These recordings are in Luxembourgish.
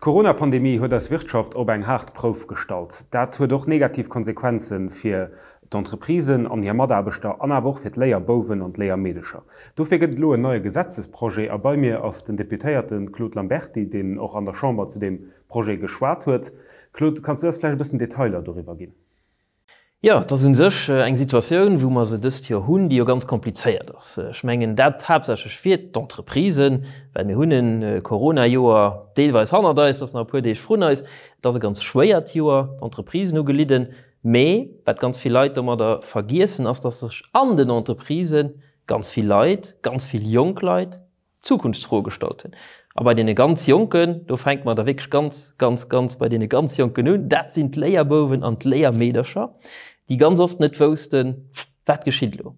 D'Corona-Pandemie huet eis Wirtschaft op eng haart Prouf gestallt. Dat huet och negativ Konsequenze fir d'Entreprisen an hir Mataarbechter an awer och fir d'Léierbouwen an d'Léiermeedecher. Dofir gëtt et elo en neie Gesetzesprojet a bei mir ass den Deputéierte Claude Lamberty, deen och an der Chamber zu deem Projet geschwat huet. Claude, kanns du eis vläicht e bëssen Detailer doriwwer ginn? Jo, et ass u sech eng Situatioun, wou mer se dëst Joer hunn, déi jo ganz komplizéiert ass. Ech mengen dat haaptsächlech fir d'Entreprisen, well mir hunn e Corona-Joer deelweis hannert eis, et ass nach e puer Deeg vrun eis. Et ass e ganz schwéiert Joer, d'Entreprisen hu gelidden. Mee wat ganz vill Leit domadder vergiessen, ass, datt sech an den Entreprisë ganz vill Leit, ganz vill jonk Leit, Zukunftsfroe gestallt hunn. A bei deene ganz Jonken, do fänke mer da wierklech ganz, ganz, ganz bei deene ganz Jonken un, dat sinn d'Léierbouwen an d'Léiermeedercher, déi ganz oft net woussten, Wat geschitt elo?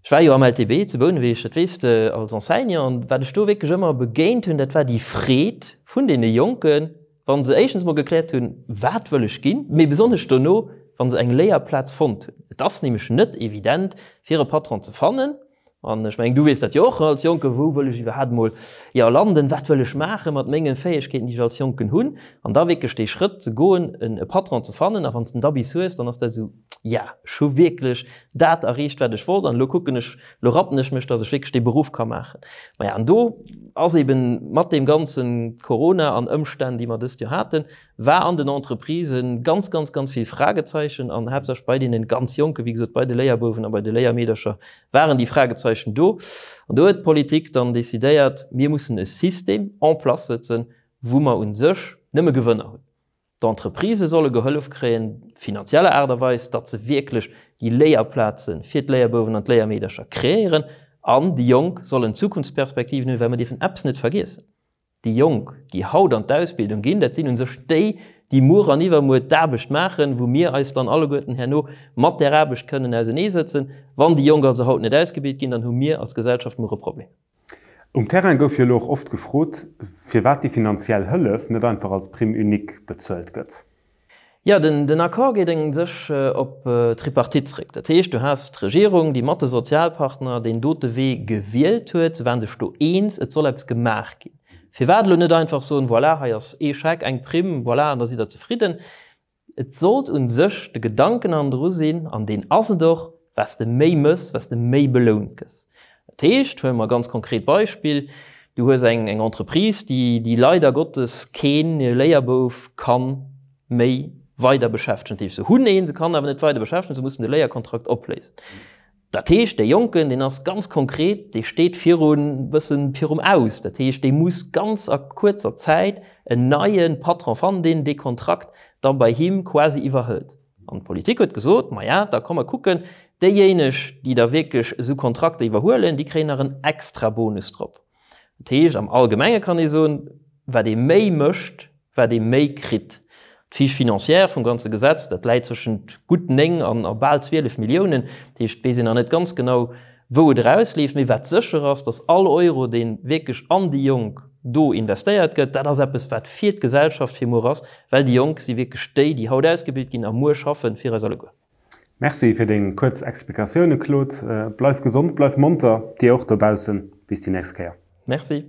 Ech war jo am LTB zu Bouneweg, dat weess de, als Enseignant, an wat ech do wierklech ëmmer begéint hunn, dat war déi Freed vun deene Jonken, wa se éischtens emol gekläert hunn, Wat wëll ech ginn? Mee besonnesch dono, wa se eng Léierplaz fonnt hunn. Et ass nämlech net evident, fir e Patron ze fannen, An ech mengen, du weess dat jo och als Jonken, wou wëll ech iwwerhaapt emol, jo, landen, wat wëll ech maache mat mengen Fäegkeeten, déi ech als Jonken hunn? An da wierklech dee Schrëtt ze goen, e Patron ze fannen. A wann s de en da bis hues, dann ass dat esou, ja, ech hu wierklech dat erreecht, wat ech wollt an elo kucken ech, elo rappen ech mech, datt ech wierklech dee Beruff ka maachen. Maja, an do ass eben mat deem ganze Corona an Ëmstänn, déi mer dëst Joer haten, war an den Entreprisen ganz, ganz, ganz vill Fragezeichen an haaptsächlech bei deenen ganz Jonken, wéi gesot bei de Léierbouwen a bei de Léiermeedercher waren déi Fragezeichen do. An do huet d'Politik dann decidéiert, mir mussen e System en place sëtzen, wou mer u sech nëmme Gewënner hunn. D'Entreprisë solle gehollef kréien, finanzieller Aart a Weis, datt se wierklech déi Léierplaze fir d'Léierbouwen an d'Léiermeedercher kreéieren an déi Jonk sollen Zukunftsperspektiven hunn, well mer dierfen eppes net vergiessen, Déi Jonk, déi haut an d'Ausbildung ginn, dat sinn u sech déi, déi muer an iwwermuer d'Aarbecht maachen, wou mir eis dann alleguerten herno mat där Aarbecht kënnen auseneesëtzen. Wann déi Jonk also haut net ausgebilt ginn, dann hu mir als Gesellschaft muer e Problem. Um Terrain gouf jo elo och oft gefrot, firwat déi finanziell Hëllef net einfach als Prime unique bezuelt gëtt. Jo, den Accord geet u sech op d'Tripartite zréck. Dat heescht, du has d'Regierung, déi mat de Sozialpartner deen dote Wee gewielt huet. Se waren sech do eens, et soll eppes gemaach ginn. Firwat elo net einfach soen, voilà, hei ass ee Scheck, eng Primm, voilà, an da sidd Der zefridden. Et sollt u sech de Gedanken hannendru sinn, an deen ass et och, Wat s de méi mëss, wat s de méi belount gëss. Dat heescht, huele mer e ganz konkret Beispill, Du hues eng Entreprise, déi leider Gottes kee Léierbouf ka méi weider beschäftegen. Dat heescht, se hunn een, se kann awer net weider beschäftegen, se mussen de Léierkontrakt opléisen. Dat heescht, dee Jonken, deen ass ganz konkret, dee steet virun, bëssen virum Aus. Dat heescht, dee muss ganz a kuerzer Zäit en neie Patron fannen, deen dee Kontrakt da bei him quasi iwwerhëlt. An d'Politik huet gesot, Maja, da komm mer kucken, déijéineg, déi da wierklech esou Kontrakter iwwerhuelen, déi kréien nach en Extrabonus drop. Dat heescht, am Allgemenge kann ee soen, wat ee méi mécht, wat ee méi kritt. D'Fiche financière vum ganze Gesetz, dat läit zwëschent gutt 9 an a bal 12 Milliounen. Dat heescht, et weess een nach net ganz genau, Wou et erausleeft, mee wat sécher ass, datt all Euro, dee wierklech an déi Jonk do investéiert gëtt, dat ass eppes, wat fir d'Gesellschaft fir muer ass, well déi Jonk si wierklech déi, déi haut ausgebilt ginn a muer schaffen fir eis alleguer. Merci fir deng kuerz Explikatioune Claude. Bleif gesond, bleif monter, dir och dobaussen. Bis déi nächst Kéier. Merci.